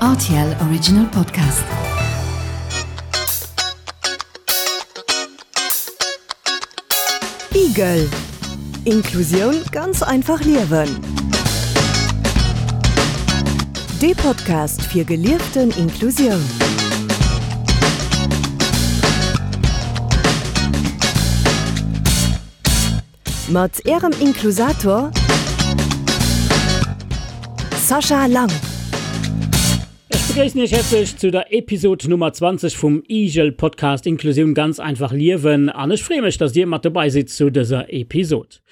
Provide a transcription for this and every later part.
RTL Original Podcast. Igel Inklusioun ganz einfach liewen. Dee Podcast fir gelieften Inklusioun. Mat Ärem Inklusator Sascha Lang. Ech begréissen Iech häerzlech zu der Episod Nummer 20 vum IGEL Podcast Inklusioun ganz einfach liewen an ech freeë mech, dass Dir mat dobei sidd zu dëser Episod.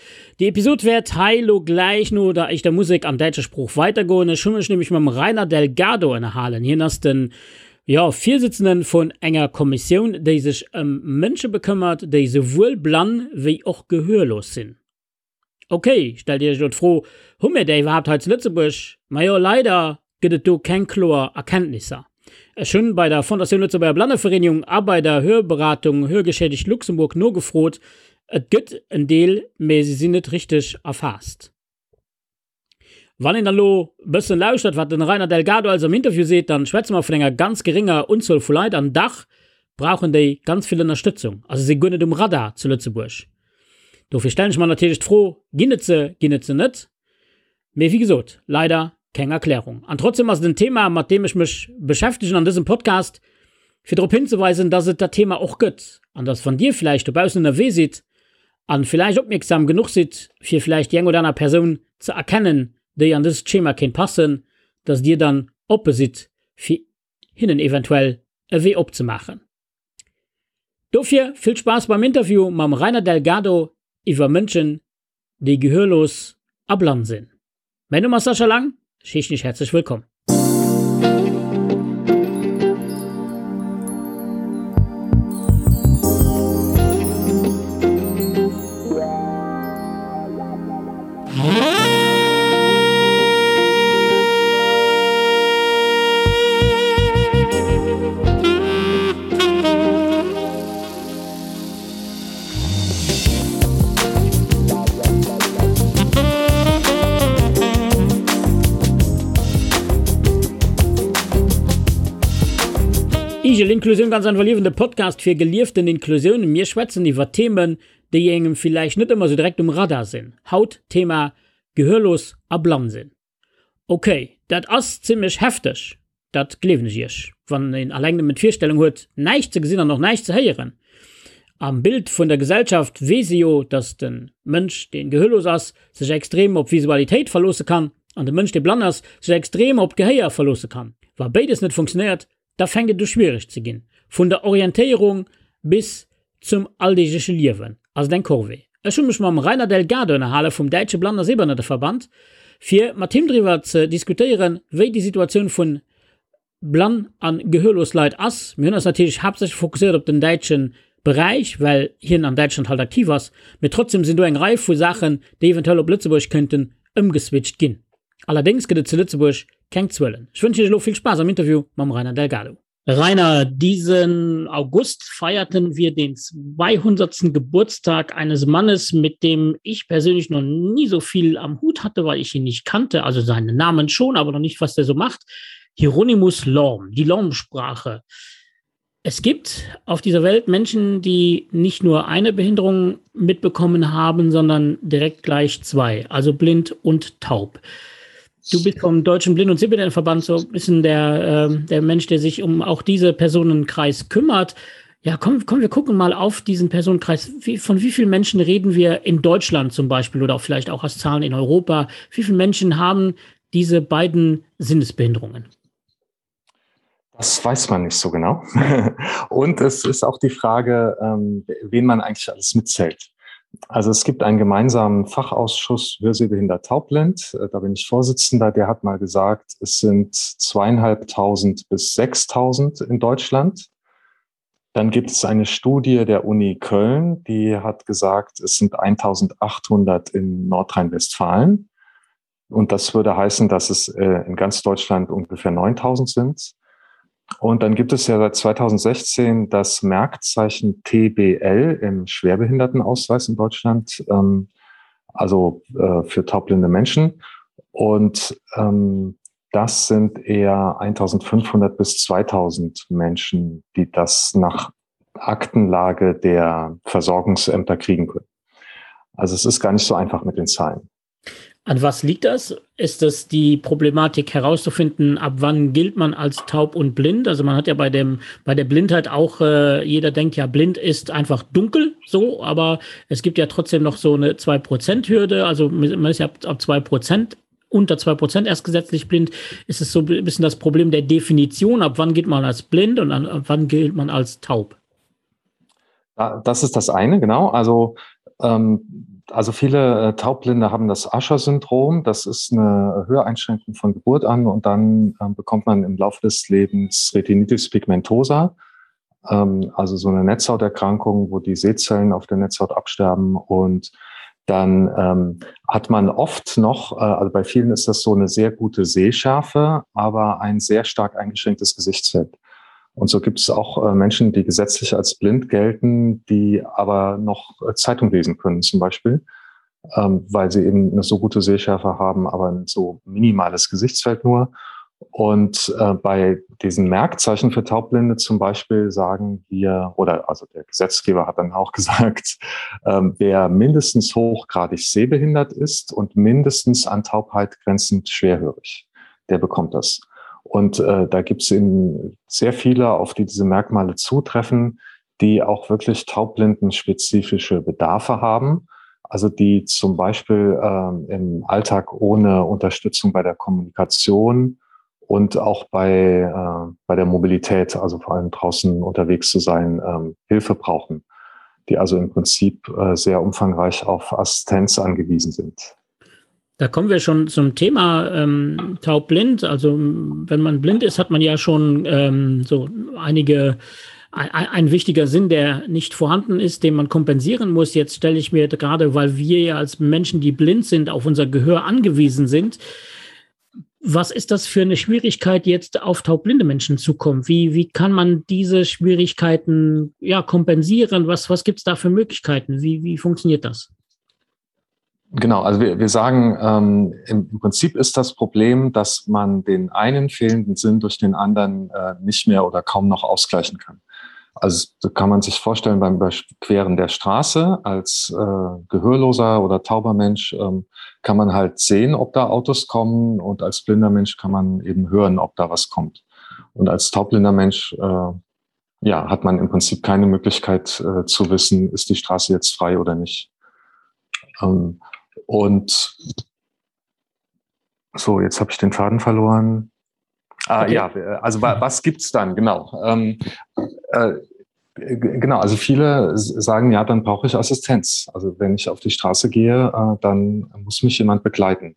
Déi Episod wäert hei lo gläich no der éischter Musek an däitscher Sprooch weidergoen. Ech hu mech nämlech mam Rainer Delgado ënnerhalen. Hien ass den Jo, Virsitzenden vun enger Kommissioun, déi sech ëm Mënsche bekëmmert, déi souwuel blann wéi och gehörlos sinn. Ok, stellt Dir Iech elo d'Fro, hu mir där iwwerhaapt hei zu Lëtzebuerg? Majo, leider gëtt et do keng kloer Erkenntnisser. Ech hunn bei der Fondatioun Lëtzebuerger Blannevereenigung a bei der Hörberatung Hörgeschädigt Luxemburg nogefrot. Et gëtt en Deel, mee se sinn net richteg erfaasst. Wann een dann elo e bëssen lauschtert, wat den Rainer Delgado alles am Interview seet, dann schwätze mer vun enger ganz gerénger Unzuel vu Leit an dach brauchen déi ganz vill Ënnerstëtzung a se si guer net um Radar zu Lëtzebuerg. Dofir stellen ech mer natierlech d'Fro, Ginn et se, ginn et se net? Mee wéi gesot, leider keng Erklärung. An trotzdem ass et en Thema, mat deem ech mech beschäftegen an dësem Podcast, fir drop hinzeweisen, dass et dat Thema och gëtt an dass wann Dir vläicht dobaussen ënnerwee sidd, an villäicht opmierksam genuch sidd fir villäicht déi eng oder aner Persoun ze erkennen déi an dëst Schema kéint passen, dass dir dann oppe sidd fir hinnen eventuell e Wee opzemaachen. Dofir vill Spaass beim Interview mam Rainer Delgado iwwer Mënschen déi gehörlos a blann sinn. Mäin Numm ass Sascha Lang, ech heeschen iech häerzlech wëllkomm. Igel Inklusioun ganz einfach liewen, de Podcast fir gelieften Inklusioun. Mir schwätzen iwwer Themen, déi engem villäicht net ëmmer sou direkt um Radar sinn. Haut Thema Gehörlos a blann sinn. Ok, dat ass zimmlech hefteg, dat gleewen ech iech, wann een alleng nëmmen d'Virstellung huet, näischt ze gesinn an och näischt ze héieren. Am Bild vun der Gesellschaft weess ee jo, datt de Mënsch, dee gehörlos ass, sech extrem op Visualitéit verloosse kann an de Mënsch, dee blann ass, sech extrem op d'Gehéier verloosse kann. Wa béides net funktionéiert, da fänkt et u schwiereg ze ginn. Vun der Orientéierung bis zum alldeegleche Liewen ass et eng Corvée. Ech hu mech mam Rainer Delgado ënnerhale vum Däitsche Blann a Sehbehinnerteverband, fir mat him driwwer ze diskutéieren, wéi déi Situatioun vun blann a gehörlos Leit ass. Mir hunn eis natierlech haaptsächlech fokusséiert op den däitsche Beräich, well hien an Däitschland halt aktiv ass, mee trotzdem sinn do eng Rei vu Saachen, déi eventuell op Lëtzebuerg kënnten ëmgeswitcht ginn. Allerdéngs gëtt et zu Lëtzebuerg keng Zuelen. Ech wënschen Iech elo vill Spaass am Interview mam Rainer Delgado. Rainer, diesen August feierten wir den 200. Geburtstag eines Mannes, mit dem ich persönlich noch nie so viel am Hut hatte, weil ich ihn nicht kannte, also seinen Namen schon, aber noch nicht, was der so macht. Hieronymus Lorm, die Lorm-Sprache. Es gibt auf dieser Welt Menschen, die nicht nur eine Behinderung mitbekommen haben, sondern direkt gleich zwei, also blind und taub. Du bist vom Deutschen Blind- und Sehbehindertenverband so ein bisschen der, äh, der Mensch, der sich um auch diese Personenkreis kümmert. Ja, komm, komm, wir gucken mal auf diesen Personenkreis. Wie, von wie vielen Menschen reden wir in Deutschland zum Beispiel oder auch vielleicht auch als Zahlen in Europa? Wie viele Menschen haben diese beiden Sinnesbehinderungen? Das weiß man nicht so genau. Und es ist auch die Frage, ähm, wen man eigentlich alles mitzählt. Also es gibt einen gemeinsamen Fachausschuss Hörsehbehindert Taubblind. Äh, da bin ich Vorsitzender. Der hat mal gesagt, es sind zweieinhalbtausend bis 6.000 in Deutschland. Dann gibt es eine Studie der Uni Köln, die hat gesagt, es sind 1.800 in Nordrhein-Westfalen. Und das würde heißen, dass es äh, in ganz Deutschland ungefähr 9.000 sind. Und dann gibt es ja seit 2016 das Merkzeichen TBL im Schwerbehindertenausweis in Deutschland, ähm, also äh, für taubblinde Menschen. Und ähm, Das sind eher 1500 bis 2000 Menschen, die das nach Aktenlage der Versorgungsämter kriegen können. Also es ist gar nicht so einfach mit den Zahlen. An was liegt das? Ist das die Problematik herauszufinden, ab wann gilt man als taub und blind? Also man hat ja bei dem bei der Blindheit auch äh, jeder denkt ja blind ist einfach dunkel so, aber es gibt ja trotzdem noch so eine 2 Prozent Hürde, also man ist ja ab, ab 2 Prozent unter 2 Prozent erst gesetzlich blind. Ist es so ein bisschen das Problem der Definition, ab wann geht man als blind und an, ab wann gilt man als taub? Das ist das eine, genau. Also ähm, also viele äh, Taubblinde haben das Ascher-Syndrom. Das ist eine Höreinschränkung von Geburt an und dann ähm, bekommt man im Laufe des Lebens Retinitis pigmentosa, ähm, also so eine Netzhauterkrankung, wo die Sehzellen auf der Netzhaut absterben und dann ähm, hat man oft noch, äh, also bei vielen ist das so eine sehr gute Sehschärfe, aber ein sehr stark eingeschränktes Gesichtsfeld. Und so gibt es auch äh, Menschen, die gesetzlich als blind gelten, die aber noch äh, Zeitung lesen können zum Beispiel, ähm, weil sie eben eine so gute Sehschärfe haben, aber ein so minimales Gesichtsfeld nur. Und äh, bei diesen Merkzeichen für Taubblinde zum Beispiel sagen wir, oder also der Gesetzgeber hat dann auch gesagt, ähm, wer mindestens hochgradig sehbehindert ist und mindestens an Taubheit grenzend schwerhörig, der bekommt das. Und äh, da gibt es eben sehr viele, auf die diese Merkmale zutreffen, die auch wirklich taublindenspezifische Bedarfe haben. Also die zum Beispiel ähm, im Alltag ohne Unterstützung bei der Kommunikation und auch bei, äh, bei der Mobilität, also vor allem draußen unterwegs zu sein, ähm, Hilfe brauchen, die also im Prinzip äh, sehr umfangreich auf Assistenz angewiesen sind. Da kommen wir schon zum Thema ähm, taubblind. Also wenn man blind ist, hat man ja schon ähm, so einige ein, ein wichtiger Sinn, der nicht vorhanden ist, den man kompensieren muss. Jetzt stelle ich mir gerade, weil wir ja als Menschen, die blind sind, auf unser Gehör angewiesen sind. Was ist das für eine Schwierigkeit, jetzt auf taubblinde Menschen zu kommen? Wie, wie kann man diese Schwierigkeiten ja, kompensieren? Was, was gibt es da für Möglichkeiten? Wie, wie funktioniert das? Genau, also wir, wir sagen, ähm, im, im Prinzip ist das Problem, dass man den einen fehlenden Sinn durch den anderen äh, nicht mehr oder kaum noch ausgleichen kann. Also da kann man sich vorstellen, beim Überqueren der Straße als äh, gehörloser oder tauber Mensch ähm, kann man halt sehen, ob da Autos kommen und als blinder Mensch kann man eben hören, ob da was kommt. Und als taubblinder Mensch äh, ja, hat man im Prinzip keine Möglichkeit äh, zu wissen, ist die Straße jetzt frei oder nicht. Ähm, und so, jetzt habe ich den Faden verloren. Ah, okay. Ja, also was gibt's dann? Genau. Ähm, äh, genau, also viele sagen, ja, dann brauche ich Assistenz. Also wenn ich auf die Straße gehe, äh, dann muss mich jemand begleiten.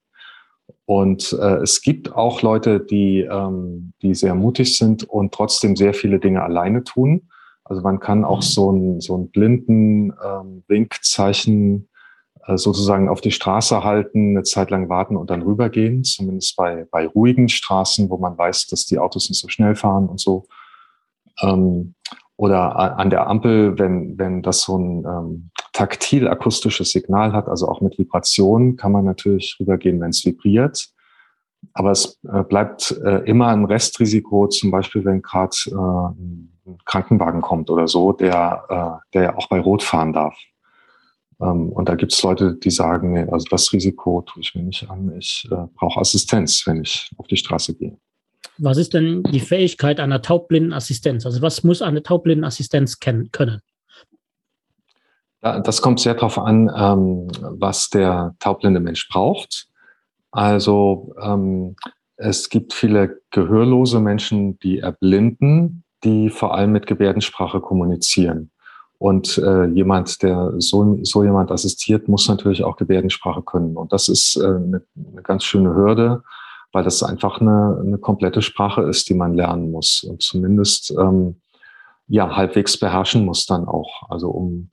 Und äh, es gibt auch Leute, die, ähm, die sehr mutig sind und trotzdem sehr viele Dinge alleine tun. Also man kann auch mhm. so ein, so ein blinden ähm, Winkzeichen äh, sozusagen auf die Straße halten, eine Zeit lang warten und dann rübergehen, zumindest bei, bei ruhigen Straßen, wo man weiß, dass die Autos nicht so schnell fahren und so. Ähm, oder an der Ampel, wenn, wenn das so ein ähm, taktil-akustisches Signal hat, also auch mit Vibration, kann man natürlich rübergehen, wenn es vibriert. Aber es äh, bleibt äh, immer ein Restrisiko, zum Beispiel, wenn gerade äh, ein Krankenwagen kommt oder so, der, äh, der ja auch bei Rot fahren darf. Ähm, und da gibt es Leute, die sagen, nee, also das Risiko tue ich mir nicht an. Ich äh, brauche Assistenz, wenn ich auf die Straße gehe. Was ist denn die Fähigkeit einer taubblinden Assistenz? Also was muss eine taubblinden Assistenz kennen können? Ja, das kommt sehr darauf an, ähm, was der taubblinde Mensch braucht. Also ähm, es gibt viele gehörlose Menschen, die erblinden, die vor allem mit Gebärdensprache kommunizieren. Und äh, jemand, der so, so jemand assistiert, muss natürlich auch Gebärdensprache können. Und das ist äh, eine, eine ganz schöne Hürde, weil das einfach eine, eine komplette Sprache ist, die man lernen muss und zumindest ähm, ja, halbwegs beherrschen muss dann auch. Also um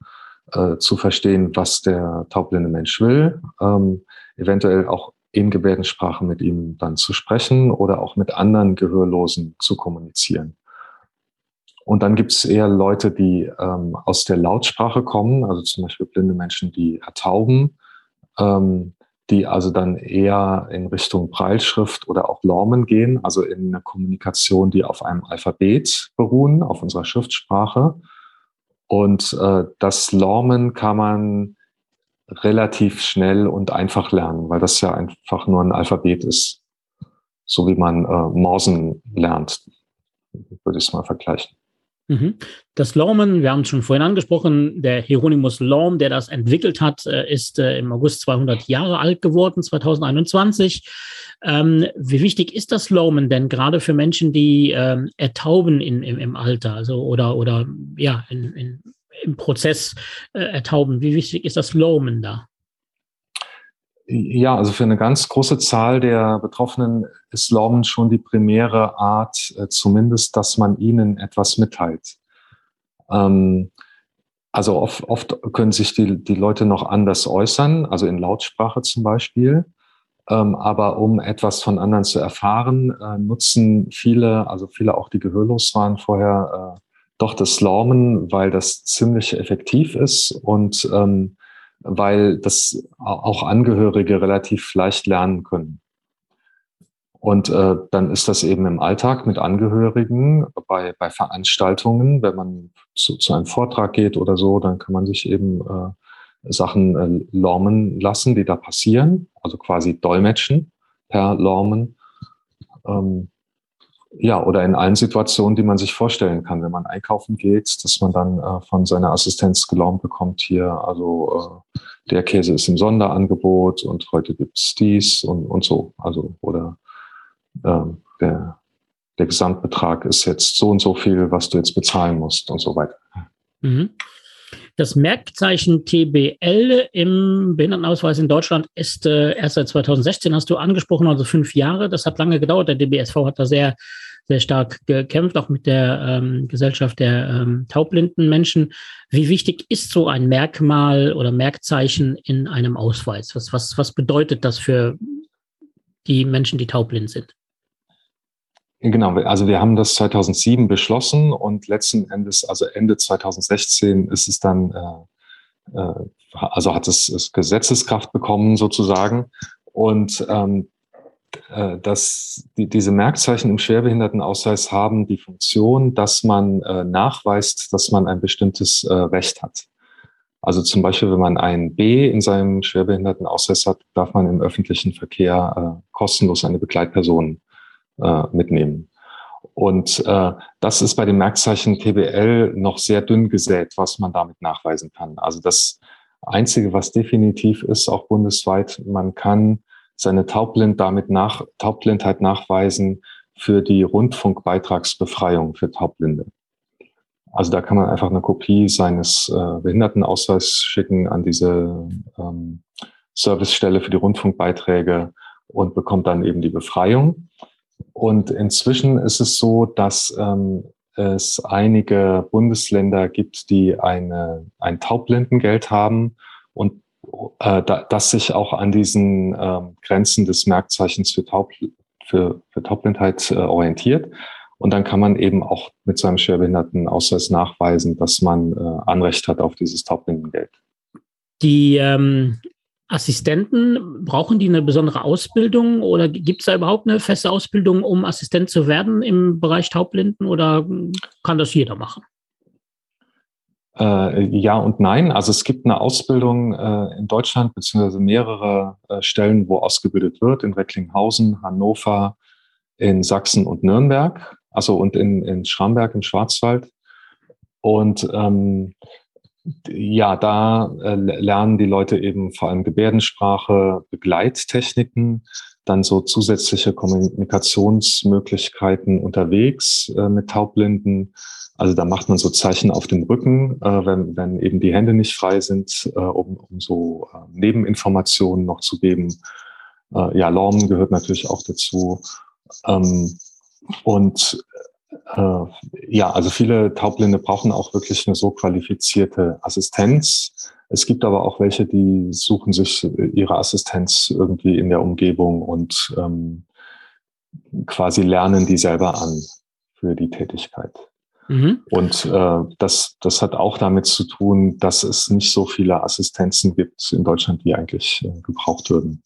äh, zu verstehen, was der taubblinde Mensch will, ähm, eventuell auch in Gebärdensprache mit ihm dann zu sprechen oder auch mit anderen Gehörlosen zu kommunizieren. Und dann gibt es eher Leute, die ähm, aus der Lautsprache kommen, also zum Beispiel blinde Menschen, die ertauben. Ähm, die also dann eher in Richtung Breilschrift oder auch Lormen gehen, also in eine Kommunikation, die auf einem Alphabet beruhen, auf unserer Schriftsprache. Und äh, das Lormen kann man relativ schnell und einfach lernen, weil das ja einfach nur ein Alphabet ist, so wie man äh, Morsen lernt, würde ich es mal vergleichen. Mhm. Das Lormen, wir haben es schon vorhin angesprochen, der Hieronymus Lorm, der das entwickelt hat, äh, ist äh, im August 200 Jahre alt geworden, 2021. Ähm, wie wichtig ist das Lormen denn gerade für Menschen, die ähm, ertauben in, im, im Alter also oder, oder ja, in, in, im Prozess äh, ertauben? Wie wichtig ist das Lormen da? Ja, also für eine ganz große Zahl der Betroffenen ist Lormen schon die primäre Art, äh, zumindest, dass man ihnen etwas mitteilt. Ähm, also oft, oft können sich die, die Leute noch anders äußern, also in Lautsprache zum Beispiel. Ähm, aber um etwas von anderen zu erfahren, äh, nutzen viele, also viele auch, die gehörlos waren vorher, äh, doch das Lormen, weil das ziemlich effektiv ist und ähm, weil das auch Angehörige relativ leicht lernen können. Und äh, dann ist das eben im Alltag mit Angehörigen bei, bei Veranstaltungen, wenn man zu, zu einem Vortrag geht oder so, dann kann man sich eben äh, Sachen äh, lormen lassen, die da passieren, also quasi dolmetschen per Lormen. Ähm, ja, oder in allen Situationen, die man sich vorstellen kann, wenn man einkaufen geht, dass man dann äh, von seiner Assistenz gelaumt bekommt hier, also äh, der Käse ist im Sonderangebot und heute gibt's dies und, und so. Also oder äh, der, der Gesamtbetrag ist jetzt so und so viel, was du jetzt bezahlen musst und so weiter. Mhm. Das Merkzeichen TBL im Behindertenausweis in Deutschland ist äh, erst seit 2016, hast du angesprochen, also fünf Jahre. Das hat lange gedauert. Der DBSV hat da sehr, sehr stark gekämpft, auch mit der ähm, Gesellschaft der ähm, taubblinden Menschen. Wie wichtig ist so ein Merkmal oder Merkzeichen in einem Ausweis? Was, was, was bedeutet das für die Menschen, die taubblind sind? Genau, also wir haben das 2007 beschlossen und letzten Endes, also Ende 2016 ist es dann, äh, äh, also hat es, es Gesetzeskraft bekommen sozusagen. Und ähm, äh, dass die, diese Merkzeichen im Schwerbehindertenausweis haben die Funktion, dass man äh, nachweist, dass man ein bestimmtes äh, Recht hat. Also zum Beispiel, wenn man ein B in seinem Schwerbehindertenausweis hat, darf man im öffentlichen Verkehr äh, kostenlos eine Begleitperson äh, mitnehmen. Und äh, das ist bei dem Merkzeichen TBL noch sehr dünn gesät, was man damit nachweisen kann. Also das Einzige, was definitiv ist, auch bundesweit, man kann seine Taubblind damit nach, Taubblindheit nachweisen für die Rundfunkbeitragsbefreiung für Taubblinde. Also da kann man einfach eine Kopie seines äh, Behindertenausweises schicken an diese ähm, Servicestelle für die Rundfunkbeiträge und bekommt dann eben die Befreiung. Und inzwischen ist es so, dass ähm, es einige Bundesländer gibt, die eine, ein Taubblindengeld haben und äh, da, das sich auch an diesen äh, Grenzen des Merkzeichens für, Taub, für, für Taubblindheit äh, orientiert. Und dann kann man eben auch mit seinem Schwerbehindertenausweis nachweisen, dass man äh, Anrecht hat auf dieses Taubblindengeld. Die ähm, Assistenten, brauchen die eine besondere Ausbildung oder gibt es da überhaupt eine feste Ausbildung, um Assistent zu werden im Bereich Taubblinden oder kann das jeder machen? Äh, ja und nein. Also es gibt eine Ausbildung äh, in Deutschland beziehungsweise mehrere äh, Stellen, wo ausgebildet wird, in Recklinghausen, Hannover, in Sachsen und Nürnberg, also und in, in Schramberg im Schwarzwald. Und ähm, ja, da äh, lernen die Leute eben vor allem Gebärdensprache, Begleittechniken, dann so zusätzliche Kommunikationsmöglichkeiten unterwegs äh, mit Taubblinden. Also da macht man so Zeichen auf dem Rücken, äh, wenn, wenn eben die Hände nicht frei sind, äh, um, um so äh, Nebeninformationen noch zu geben. Äh, ja, Lorm gehört natürlich auch dazu. Ähm, und äh, ja, also viele Taubblinde brauchen auch wirklich eine so qualifizierte Assistenz. Es gibt aber auch welche, die suchen sich ihre Assistenz irgendwie in der Umgebung und ähm, quasi lernen die selber an für die Tätigkeit. Mhm. Und äh, das, das hat auch damit zu tun, dass es nicht so viele Assistenzen gibt in Deutschland, die eigentlich äh, gebraucht würden.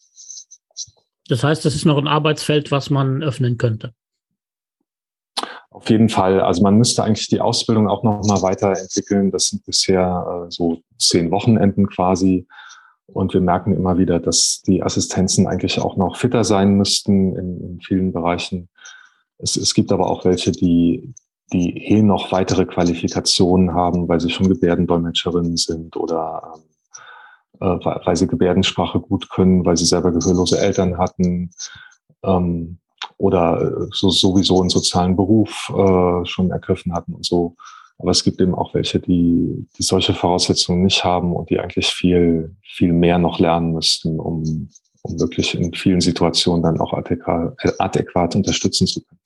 Das heißt, das ist noch ein Arbeitsfeld, was man öffnen könnte. Auf jeden Fall. Also man müsste eigentlich die Ausbildung auch noch mal weiterentwickeln. Das sind bisher äh, so zehn Wochenenden quasi. Und wir merken immer wieder, dass die Assistenzen eigentlich auch noch fitter sein müssten in, in vielen Bereichen. Es, es gibt aber auch welche, die, die eh noch weitere Qualifikationen haben, weil sie schon Gebärdendolmetscherinnen sind oder ähm, äh, weil sie Gebärdensprache gut können, weil sie selber gehörlose Eltern hatten ähm, oder äh, so, sowieso einen sozialen Beruf äh, schon ergriffen hatten und so. Aber es gibt eben auch welche, die, die solche Voraussetzungen nicht haben und die eigentlich viel, viel mehr noch lernen müssten, um, um wirklich in vielen Situationen dann auch adäquat, adäquat unterstützen zu können.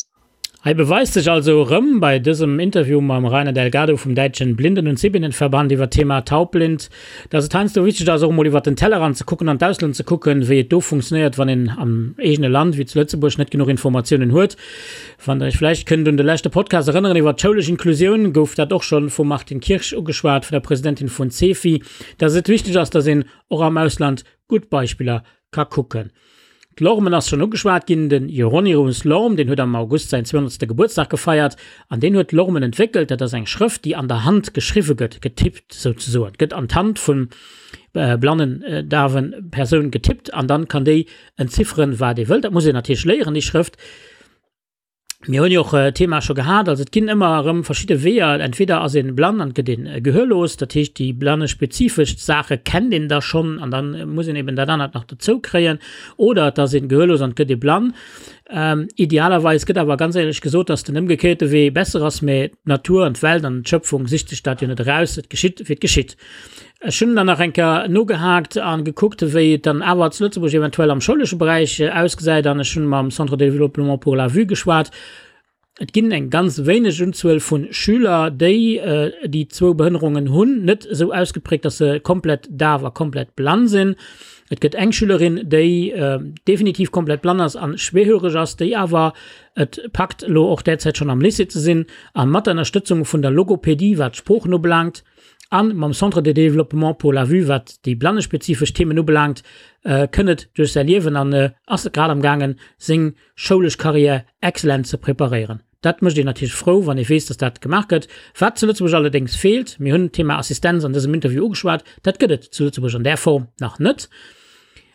Hei beweist sech also erëm bei dësem Interview mam Rainer Delgado vum däitschen Blinden und Sehbindenverband iwwer d'Thema Taubblind, dass et heiansdo wichteg ass och emol iwwer den Tellerrand ze kucken an d'Ausland ze kucken, wéi et do funktionéiert, wann een am eegene Land, wéi zu Lëtzebuerg, net genuch Informatiounen huet. Wann der iech vläicht kënnt un de leschte Podcast erënneren iwwer d'schoulesch Inklusioun, gouf dat och schonn vum Martine Kirsch ugeschwat, vun der Presidentin vun CEFI, dass et wichteg ass, dass een och am Ausland gutt Beispiller ka kucken. D'Lormen ass schonn ugeschwat ginn. Den Hieronymus Lorm, deen huet am August säin 200. Gebuertsdag gefeiert an deen huet d'Lormen entwéckelt. Dat ass eng Schrëft, déi an der Hand geschriwwe gëtt, getippt souzesoen. Gëtt an d'Hand vun blannen, dawe Persoun getippt an dann kann déi entzifferen, wat ee wëllt. Dat muss een natierlech léieren, déi Schrëft. Mir hunn jo och d'Thema scho gehat, also et ginn ëmmer erëm verschidde Weeër. Entweder ass ee blann an gëtt ee gehörlos, dat heescht déi blanne-spezifesch Saache kennt een da schonn an da muss een eben dat anert nach dozou kréien. Oder et ass ee gehörlos an et gëtt ee blann. Idealerweis gëtt awer ganz éierlech gesot, datt den ëmgekéierte Wee besser ass, mä d'Natur an d'Welt an d'Schöpfung sicht sech dat jo net eraus, et geschitt wéi et geschitt. Ech hunn dann nach eng Kéier nogehaakt a gekuckt, wéi et dann awer zu Lëtzebuerg eventuell am schoulesche Beräich ausgesäit. An ech hunn mam Centre de développement pour la vue geschwat. Et ginn eng ganz wéineg Unzuel vu Schüler, déi déi zwou Behënnerungen hunn, net esou ausgeprägt, dass se komplett daf a komplett blann sinn. Et gëtt eng Schülerin, déi definitiv komplett blann ass a schwerhöreg ass, déi awer et packt, elo och derzäit schonn am Lycée ze sinn a mat der Ënnerstëtzung vun der Logopädie, wat d'Sproochen ubelaangt, A mam Centre de développement pour la vue, wat déi blannespezifesch Themen ubelaangt, kënn et duerch säi Liewen an ass grad am gaangen, seng schoulesch Carrière excellent ze preparéieren. Dat mécht een natierlech frou, wann ee weess, dass dat gemaach gëtt. Wat zu Lëtzebuerg allerdéngs feelt, mir hunn d'Thema Assistenz an dësem Interview ugeschwat, dat gëtt et zu Lëtzebuerg an där Form nach net.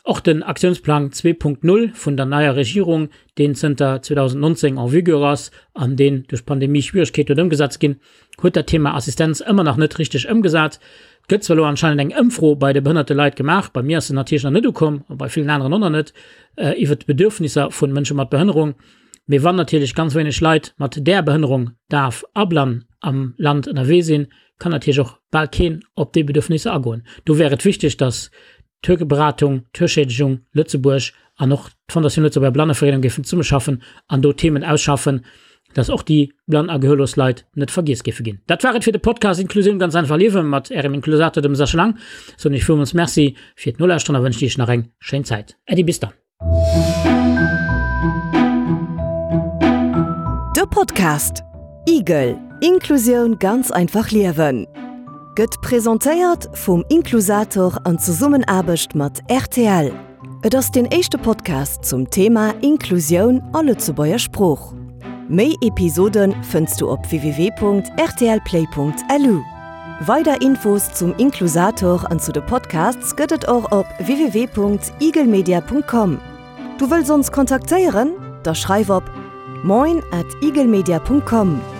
Och den Aktiounsplang 2.0 vun der neier Regierung, deen zënter 2019 en vigueur ass an deen duerch d'Pandemie Schwieregkeeten huet ëmgesat ze ginn, huet dat Thema Assistenz ëmmer nach net richteg ëmgesat. Et gëtt zwar elo anscheinend eng Ëmfro bei de behënnerte Leit gemaach, bei mir ass se natierlech nach net ukomm a bei villen aneren och nach net, iwwer d'Bedürfnisser vu Mënsche mat Behënnerung. Mee wann natierlech ganz wéineg Leit mat där Behënnerung, daf a blann, am Land ënnerwee sinn, kann natierlech och bal keen op déi Bedürfnisser agoen. Do wär et wichteg, datt d'Hörberatung, d'Hörschädigung Lëtzebuerg an och d'Fondatioun Lëtzebuerger Blannevereelung géifen zesummeschaffen an do Themen ausschaffen, dass och déi blann a gehörlos Leit net vergiess géife ginn. Dat war et fir de Podcast Inklusioun ganz einfach liewen mat Ärem Inklusator, dem Sascha Lang. Soen Iech villmools Merci fir d'Nolauschteren a wënschen Iech nach eng schéin Zäit. Äddi, bis dann. De Podcast Igel, Inklusioun ganz einfach liewen gëtt presentéiert vum Inklusator an Zesummenaarbecht mat rtl. Et ass deen éischte Podcast zum Thema Inklusioun a Lëtzebuerger Sprooch. Méi Episode fënns du op www.rtlplay.lu. Weider Infos zum Inklusator an zu de Podcasts gëtt et och op www.igelmedia.com. Du wëlls ons kontaktéieren? Da schreif op moin at igelmedia.com.